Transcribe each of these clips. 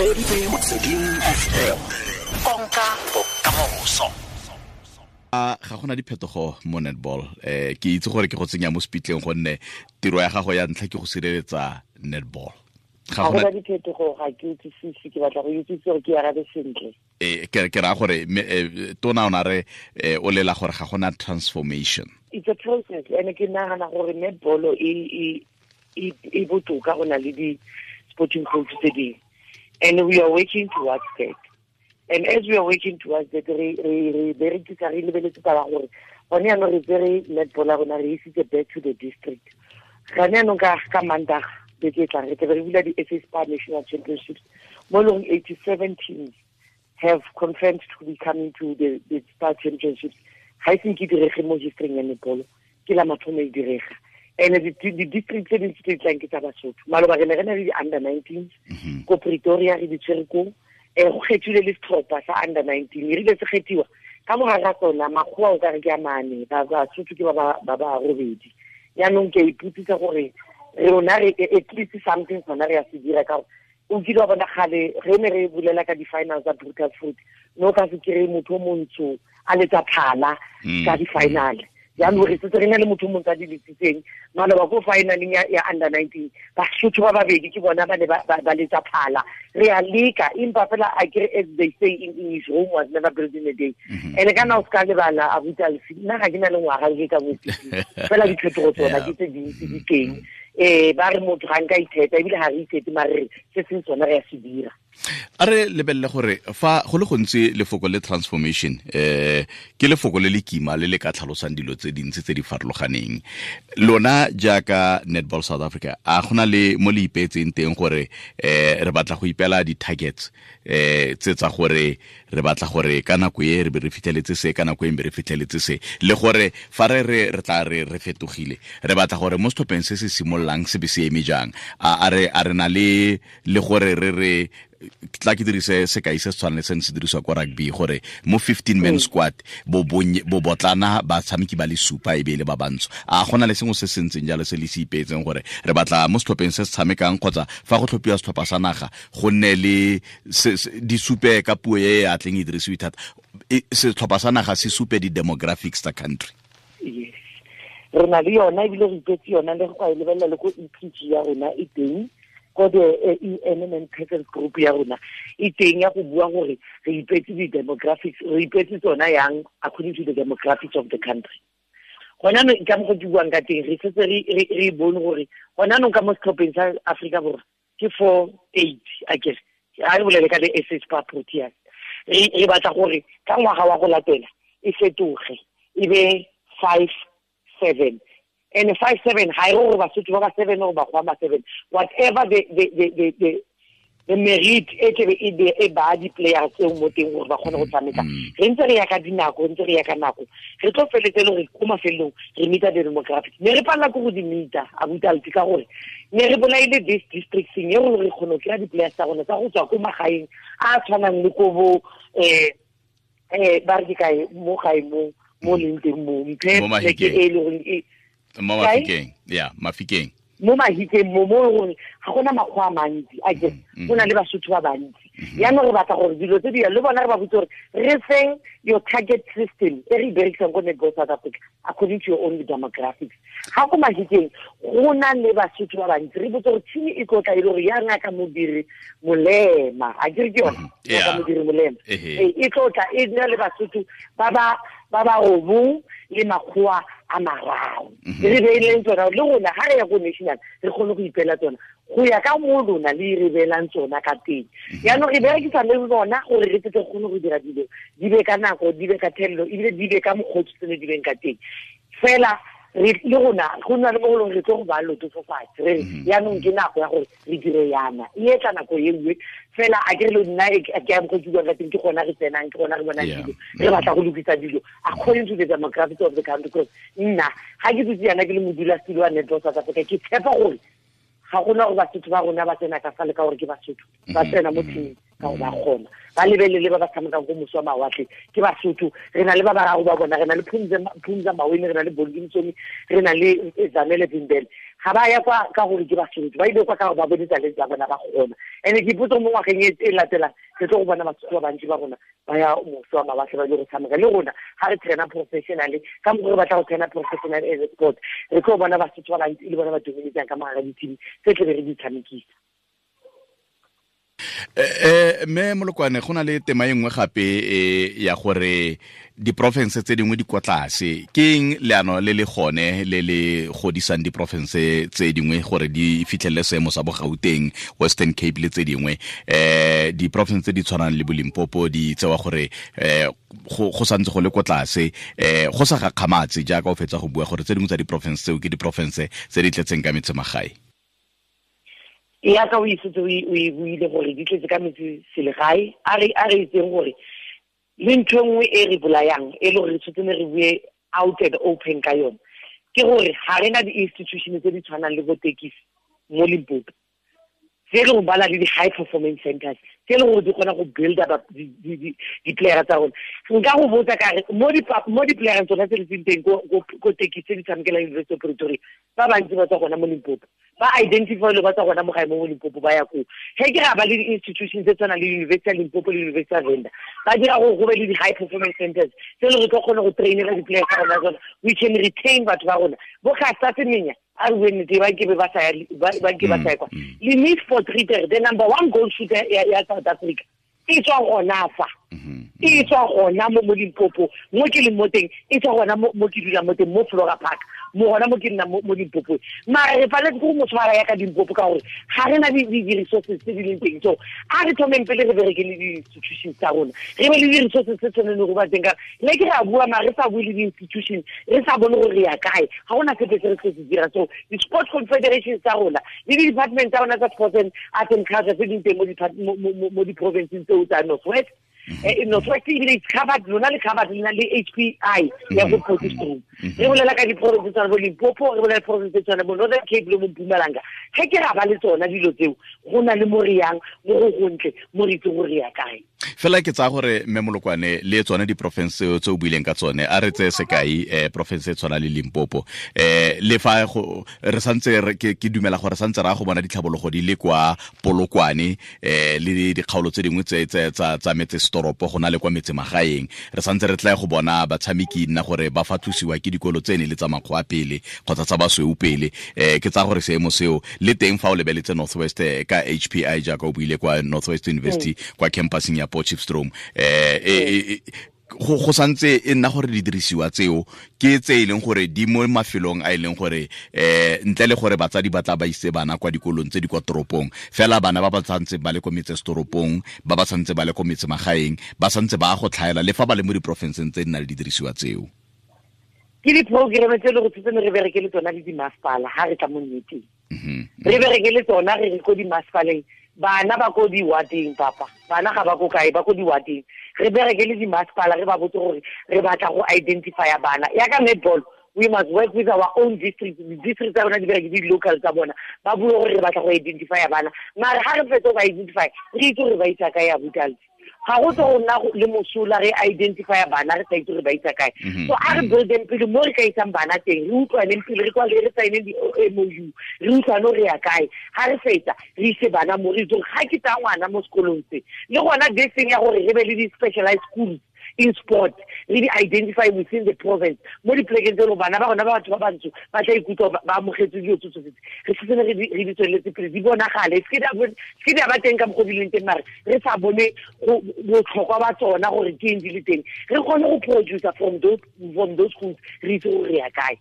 Reditse Motsweding FM. Konka bokamoso. Ga gona diphetogo mo netball. Ke itse gore ke go tsenya mo speetleng gonne tiro ya gago ya ntlha ke go sireletsa netball. Ga gona diphetogo, ga ke utlwisise, ke batla go utlwisisa gore ke arabe sentle. Ke ra gore tona o na re o lela gore ga gona transformation. It's a process, and ke nagana gore netball e botoka go na le di sporting coach tse dingwe. And we are working towards that. And as we are working towards that, re berekisa re lebeletse taba gore gone jaanong re tsere netball ya rona re isitse back to the district. Gone jaanong ka Mandag beke e tlang re tlabe re bula di-SA Spar National Championships mo leng 87 teams have confirmed to be coming to the Spar Championships. Ga e senke direge mo history ya netball, ke la mathomo e direga. And the district tse dintsi tse di tlang ke tsa Basotho. Maloba re ne re na le di-under 19s ko Pretoria re di tshwere koo. Go kgethile le setlhopha sa under 19, e rile se kgethiwa ka mogare ga tsona makgowa o kare ke a mane, Basotho ke ba ba robedi. Jaanong ke a ipotsisa gore rona re at least something sona re a se dira, ka gore o kile wa bona kgale re ne re bulela ka di-finals tsa Brutal Fruit, no ka se kry-e motho o montsho a letsa phala ka di-final. Jaanong re setse re na le motho o montsho a di letsitseng maloba ko finaleng ya under 19, Basotho ba babedi ke bona ba ne ba letsa phala. Re a leka, empa fela a kere, as they say in English, Rome was never built in a day. And ka na o ska lebala abuti Alfi, nna ga ke na le ngwaga ke ka bosisi fela diphetogo tsona ke tse dintsi di teng. Ba re motho ga nka itheta, ebile ga re ithete, mare se seng sona re a se dira. A re lebelele gore fa go le gontsi lefoko le transformation ke lefoko le le kima le le ka tlhalosang dilo tse dintsi tse di farologaneng. Lona jaaka Netball South Africa, a gona le mo le ipeetseng teng gore re batla go ipela di-targets tse tsa gore re batla gore ka nako e re be re fitlheletse se, ka nako e be re fitlheletse se, le gore fa re re tla re re fetogile, re batla gore mo setlhopheng se se simololang se be se eme jang. A re na le gore re tla ke dirise sekai se se tshwanang le se ne se dirisiwa kwa rugby, gore mo 15 man squad bo botlana batshameki ba le supa e be le ba bantsho. A gona le sengwe se se ntseng jalo se le se ipeetseng gore re batla mo setlhopheng se se tshamekang kgotsa fa go tlhophiwa setlhopha sa naga go nne le di supe ka puo e a tleng e dirisiwe thata, setlhopha sa naga se supe di-demographics tsa country? Yes, re na le yona, ebile re ipetse yona le go e lebelela le ko EPG ya rona e teng, ko the ENMN Presence Group ya rona e teng ya go bua gore re ipetse di-demographics, re ipetse tsona yang according to the demographics of the country. Gona anong ka mokgwa ke buang ka teng, re setse re bone gore gona anong ka mo setlhopheng sa Afrika Borwa ke 4-8, akere a re bolele ka le SA Spar Proteas. Re batla gore ka ngwaga wa go latela e fetoge e be 5-7. And 5-7 ga e re gore Basotho ba ba 7 or Bakgowa ba 7, whatever the merit e tlebe e ba di-players tseo mo teng gore ba kgone go tshameka. Re ntse re ya ka dinako, re ntse re ya ka nako, re tlo feletse le gore ko mafelong re meeta the demographics. Ne re palela ke go di meeta abuti Alfi, ka gore ne re bolaile this district thing e gore re kgone go kry-a di-players tsa rona tsa go tswa ko magaeng a tshwanang le ko bo ba re ke kae mo gae mo leng teng mo mphe pleke e le goreng e mo Mafikeng, ya Mafikeng, mo Mahikeng mo gore ga gona makgwa a mantsi, a ke go na le Basotho ba bantsi. Jaanong re batla gore dilo tse di le bona re ba botse gore re feng your target system e re e berekisang ko Netball South Africa according to your own demographics. Ga ko Mahikeng go na le Basotho ba bantsi, re botse gore team e tlotla e le gore ya Ngaka Modiri Molema, a ke re ke yona Ngaka Modiri Molema e tlotla e na le Basotho ba ba robong le makgowa a mararo. Re beileng tsona le rona ga re ya ko national re kgone go ipela tsona go ya ka mo lona le re beelang tsona ka teng. Jaanong re berekisa le bona gore re tle re kgone go dira dilo di be ka nako, di be ka thelelo, ebile di be ka mokgwa o tsene di beng ka teng. Fela re le rona go nna le mo golong re tlo go ba loto fo fatshe, re jaanong ke nako ya gore re dire yana, e etla nako e nngwe fela. A ke re le nna ke ya mokgwa ke buang ka teng, ke gona re tsenang, ke gona re bonang dilo, re batla go lokisa dilo according to the demographics of the country. Because nna ga ke dutse yana ke le modulasetulo wa Netball South Africa, ke tshepa gore ga gona gore Basotho ba rona ba tsena ka fa le ka gore ke Basotho ba tsena mo teaming ka gore ba kgona, ba lebelele ba ba tshamekang ko moso wa mawatle ke Basotho. Re na le ba bararo ba bona, re na le Phumza Maweni, re na le Bongi Msomi, re na le Zanele Vimbele. Ga ba ya kwa ka gore ke Basotho, ba ile kwa ka gore ba bone talente ya bona ba kgona. And ke ipotsa mo ngwageng e latelang re tlo go bona Basotho ba bantsi ba rona ba ya moso wa mawatle ba ile go tshameka le rona. Ga re traina professionally ka mokgwa re batla go traina professional as a sport, re tlo bona Basotho ba bantsi e le bona ba dominetsang ka mogare di-team tse tle be re di tshamekisa. Mme Molokwane, go na le tema e nngwe gape ya gore diporofense tse dingwe di kwa tlase. Ke eng leano le le gone le le godisang diporofense tse dingwe gore di fitlhelele seemo sa bo Gauteng, Western Cape le tse dingwe? Diporofense tse di tshwanang le bo Limpopo di tsewa gore go santse go le kwa tlase, go sa gakgamatse jaaka o fetsa go bua gore tse dingwe tsa diporofense tseo ke diporofense tse di tletseng ka metsemagae. Ya ka o isetse o e buile gore di tletse ka metse selegae. A re itseng gore le ntho e nngwe e re bolayang e le gore re tshwanetse ne re bue out and open ka yone ke gore ga re na di-institution tse di tshwanang le bo Tekisi mo Limpopo, tse e leng gore ba na le di-high performance centers tse e leng gore di kgona go build up di-playera tsa rona. Nka go botsa ka re mo di-playereng tsona tse di leng teng ko Tekisi tse di tshamekelang University of Pretoria, ba bantsi ba tswa gona mo Limpopo, ba identify le ba tswa gona mo gae mo Limpopo ba ya koo. Ge ke ra ba le di-institutions tse tshwanang le University ya Limpopo le University ya Venda, ba dira gore go be le di-high performance centers tse e leng gore tlo kgone go trainela di-player tsa rona tsona. We can retain batho ba rona. Bo Caster Semenya, a re bue nnete, ba ke ba sa ya ba ke ba sa ya kwa. Le Miss Potgieter, the number one goal shooter ya South Africa, e tswa gona fa. E tswa gona mo Limpopo, mo ke leng mo teng, e tswa gona mo ke dulang mo teng, mo Flora Park, mo gona mo ke nnang mo Limpopo. Mara re paletse ke go mo tshwara ya ka Limpopo ka gore ga re na di-resources tse di leng teng. So a re thomeng pele re bereke le di-institutions tsa rona, re be le di-resources tse tshwaneng go ba teng. Ka le ke re a bua mara re sa bue le di-institution, re sa bone gore re ya kae, ga gona sepe se re se se dira. So di-sport confederations tsa rona le di-department tsa rona tsa sports and arts and culture tse di teng mo di-provinceng tseo tsa North West. North West ebile it's covered, lona le covered le na le HPI ya go Potchefstroom. Re bolela ka diprovince tsa bo Limpopo, re bolela diprovince tse tshwana bo Northern Cape le mo Mpumalanga. Ge ke ra ba le tsona dilo tseo, go na le mo re yang mo go gontle, mo re itse gore re ya kae. Fela ke tsaya gore mme Molokwane le tsone diporofense tse o buileng ka tsone, a re tseye sekai porofense e tshwana le Limpopo, le fa re santse ke dumela gore santse ra go bona ditlhabologo di le kwa Polokwane, le dikgaolo tse dingwe tse tsa metse setoropo go na le kwa metse magaeng, re santse re tla go bona batshameki nna gore ba fatlosiwa ke dikolo tse ne le tsa makgoa pele kgotsa tsa basweu pele. Ke tsaya gore seemo seo le teng fa o lebeletse North West ka HPI jaaka o buile kwa North West University kwa campuseng ya Potchefstroom, go santse e nna gore di dirisiwa tseo ke tse e leng gore di mo mafelong a e leng gore ntle le gore batsadi ba tla ba ise bana kwa dikolong tse di kwa toropong, fela bana ba ba santse ba le ko metse setoropong, ba ba santse ba le ko metse magaeng, ba santse ba go tlhaela le fa ba le mo diporofenseng tse di nang le didirisiwa tseo. Ke di-programme tse e le go tshwanetse re bereke le tsona le dimasepala ha re tla mo nneteng. Re bereke le tsona re re ko dimasepaleng, bana ba ko di-wardeng, papa bana ga ba ko kae, ba ko di-wardeng. Re bereke le dimasepala, re ba botse gore re batla go identifya bana. Ya ka netball, we must work with our own district. District tsa rona di bereke di-local tsa bona, ba bue gore re batla go identifya bana. Mara ha re fetsa go ba identify, re itse gore ba isa kae ya botalsi. Ga go tlo go nna le mosola re identify bana re sa itse gore ba isa kae. So a re buildeng pele mo re ka isang bana teng, re utlwaneng pele, re kwale re sign di-MOU, re utlwane gore re ya kae. Ha re fetsa re ise bana mo, re itse gore ga ke tsaya ngwana mo sekolong se. Le gona this thing ya gore re be le di-specialized schools in sport, re di identify within the province mo dipolekeng tse e leng bana ba rona ba batho ba bantsho ba tla ikutlwa ba amogetse dilo tse tsotlhe. Re setse re di tsweletse pele, di bonagale, se ke di a ba teng ka mokgwa di leng teng, mare re sa bone botlhokwa ba tsona gore ke eng di le teng. Re kgone go producer from those schools, re itse gore re ya kae.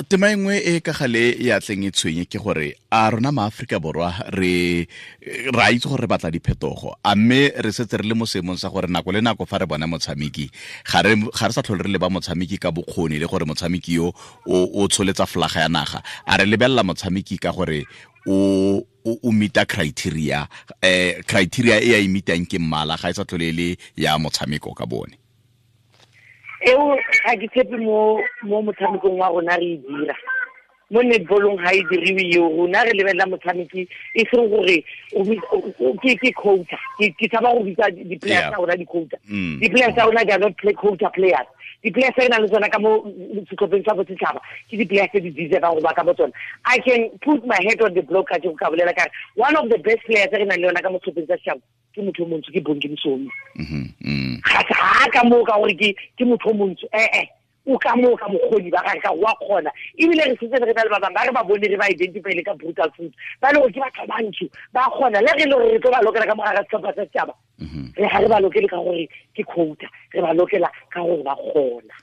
Tema e nngwe e ka gale ya tleng e tshwenye ke gore a rona maAforika Borwa re ra itse gore re batla diphetogo, a mme re setse re le mo seemong sa gore nako le nako fa re bona motshameki ga re sa tlhole re leba motshameki ka bokgoni le gore motshameki yo o tsholetsa flaga ya naga, a re lebelela motshameki ka gore o meeta criteria, criteria e a e meetang ke mmala, ga e sa tlhole le ya motshameko ka bone. Eo ga ke tshepe mo motshamekong wa rona re e dira. Mo netballong ga e diriwe eo, rona re lebelela motshameki e seng gore ke quota. Ke tshaba go bitsa di-players tsa rona di-quota. Di-players tsa rona, they are not play quota players. Di-players tse re nang le tsona ka mo setlhopheng sa bosetšhaba ke di-players tse di deservang go ba ka mo tsona. I can put my head on the block ka ka bolela kare one of the best players tse re nang le yona ka mo setlhopheng sa setšhaba ke motho o montsho, ke Bongi Msomi. Ga ka moo ka gore ke motho o montsho, ee, o ka moo ka bokgoni ba gage, ka wa kgona. Ebile re setse re na le ba bangwe ba re ba bone, re ba identify-ile ka Brutal Fruit, ba le gore ke batho ba bantsho, ba kgona. Le re le gore re tlo ba lokela ka mogare ga setlhopha sa setšhaba, re ga re ba lokele ka gore ke quota, re ba lokela ka gore ba kgona.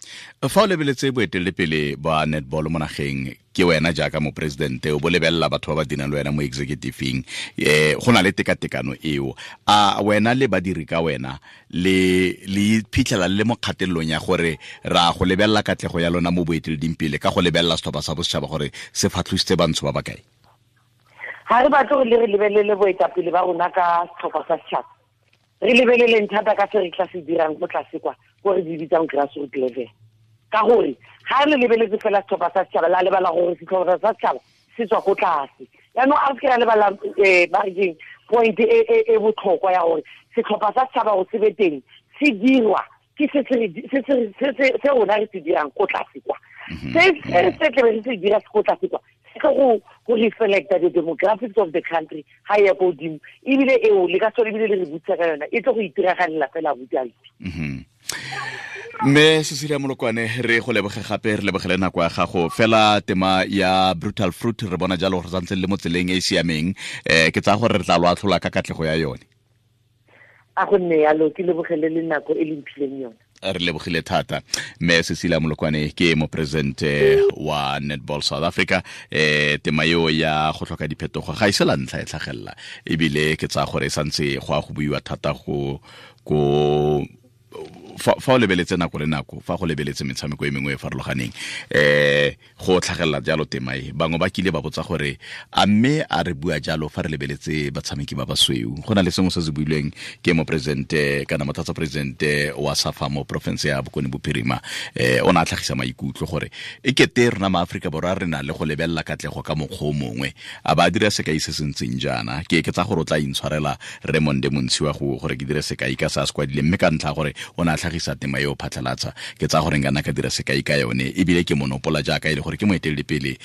Fa o lebeletse boeteledipele ba netball mo nageng, ke wena jaaka moporesidente o bo lebelela batho ba ba dirang le wena mo executiveng, go na le tekatekano eo, a wena le badiri ka wena le phitlhela le mo kgatelelong ya gore ra go lebelela katlego ya lona mo boeteleding pele ka go lebelela setlhopha sa bosetšhaba gore se fatlhositse bantsho ba bakae? Ga re batle gore le re lebelele boetapele ba rona ka setlhopha sa setšhaba. Re lebeleleng thata ka se re tla se dirang ko tlase kwa, ko re di bitsang grassroot level, ka gore ga re lebeletse fela setlhopha sa setšhaba, la lebala gore setlhopha sa setšhaba se tswa ko tlase. Yaanong a re se ke ra lebala, ba re keng, point e botlhokwa ya gore setlhopha sa setšhaba go se be teng se dirwa ke se rona re se dirang ko tlase kwa. Se tlebe re se dira se ko tlase kwa, se tlo go reflecta the demographics of the country ga e ya ko godimo. Ebile eo le ka sone, ebile le re botsa ka yona, e tlo go itiragalela fela bojalwa. Mme Cecilia Molokwane, re go leboge gape, re lebogele nako ya gago. Fela tema ya Brutal Fruit, re bona jalo gore santse le mo tseleng e e siameng, ke tsaya gore re tla lo atlhola ka katlego ya yone. A go nne yalo, ke lebogele le nako e le mphileng yone. Re lebogile thata. Mme Cecilia Molokwane ke moporesidente wa Netball South Africa. Tema eo ya go tlhoka diphetogo ga e se la ntlha e tlhagelela, ebile ke tsaya gore e santse go a go buiwa thata go ko fa o lebeletse nako le nako, fa go lebeletse metshameko e mengwe e farologaneng, go tlhagelela jalo tema e. Bangwe ba kile ba botsa gore a mme a re bua jalo fa re lebeletse batshameki ba basweu. Go na le sengwe se se builweng ke moporesidente kana motlatsa-presidente wa SAFA mo porofense ya Bokone Bophirima, o ne a tlhagisa maikutlo gore e kete rona maAforika Borwa re na le go lebelela katlego ka mokgwa o mongwe, a ba dira sekai se se ntseng jaana. Ke tsa gore o tla intshwarela Raymond Montshiwa gore ke dire sekai ka se a se kwadileng, mme ka ntlha gore o ne a tlhagisa tema eo phatlhalatsa, ke tsaya gore nka nna ka dira sekai ka yone. Ebile ke monopola jaaka e le gore ke moeteledipele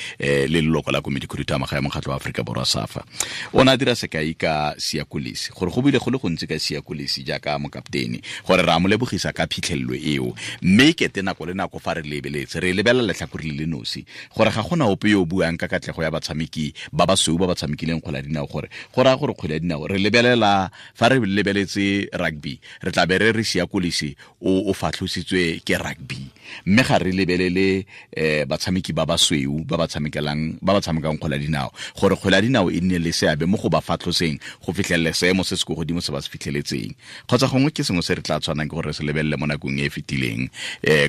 le leloko la komiti khuduthamaga ya mokgatlho wa Aforika Borwa SAFA. O ne a dira sekai ka Siya Kolisi, gore go buile go le gontsi ka Siya Kolisi jaaka mokaptene, gore re a mo lebogisa ka phitlhelelo eo, mme kete nako le nako fa re lebeletse re lebelela letlhakore le le nosi, gore ga gona ope yo o buang ka katlego ya batshameki ba basweu ba ba tshamekileng kgwele ya dinao, gore go raya gore kgwele ya dinao re lebelela fa re lebeletse rugby re tla be re re Siya Kolisi o fatlhositswe ke rugby, mme ga re lebelele batshameki ba basweu ba ba tshamekang kgwele ya dinao, gore kgwele ya dinao e nne le seabe mo go ba fatlhoseng go fitlhelela seemo se se ko godimo se ba se fitlheletseng. Kgotsa gongwe ke sengwe se re tla tshwanang ke gore re se lebelele mo nakong e e fetileng,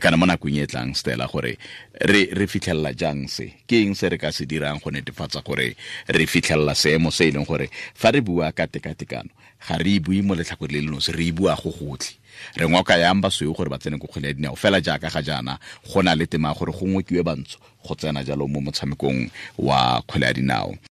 kana mo nakong e e tlang, Stella, gore re fitlhelela jang se, ke eng se re ka se dirang go netefatsa gore re fitlhelela seemo se e leng gore fa re bua ka tekatekano ga re e bue mo letlhakore le le nosi, re e bua go gotlhe. Re ngoka yang basweu gore ba tsene ko kgwele ya dinao, fela jaaka ga jaana go na le tema gore go ngokiwe bantsho go tsena jalo mo motshamekong wa kgwele ya dinao.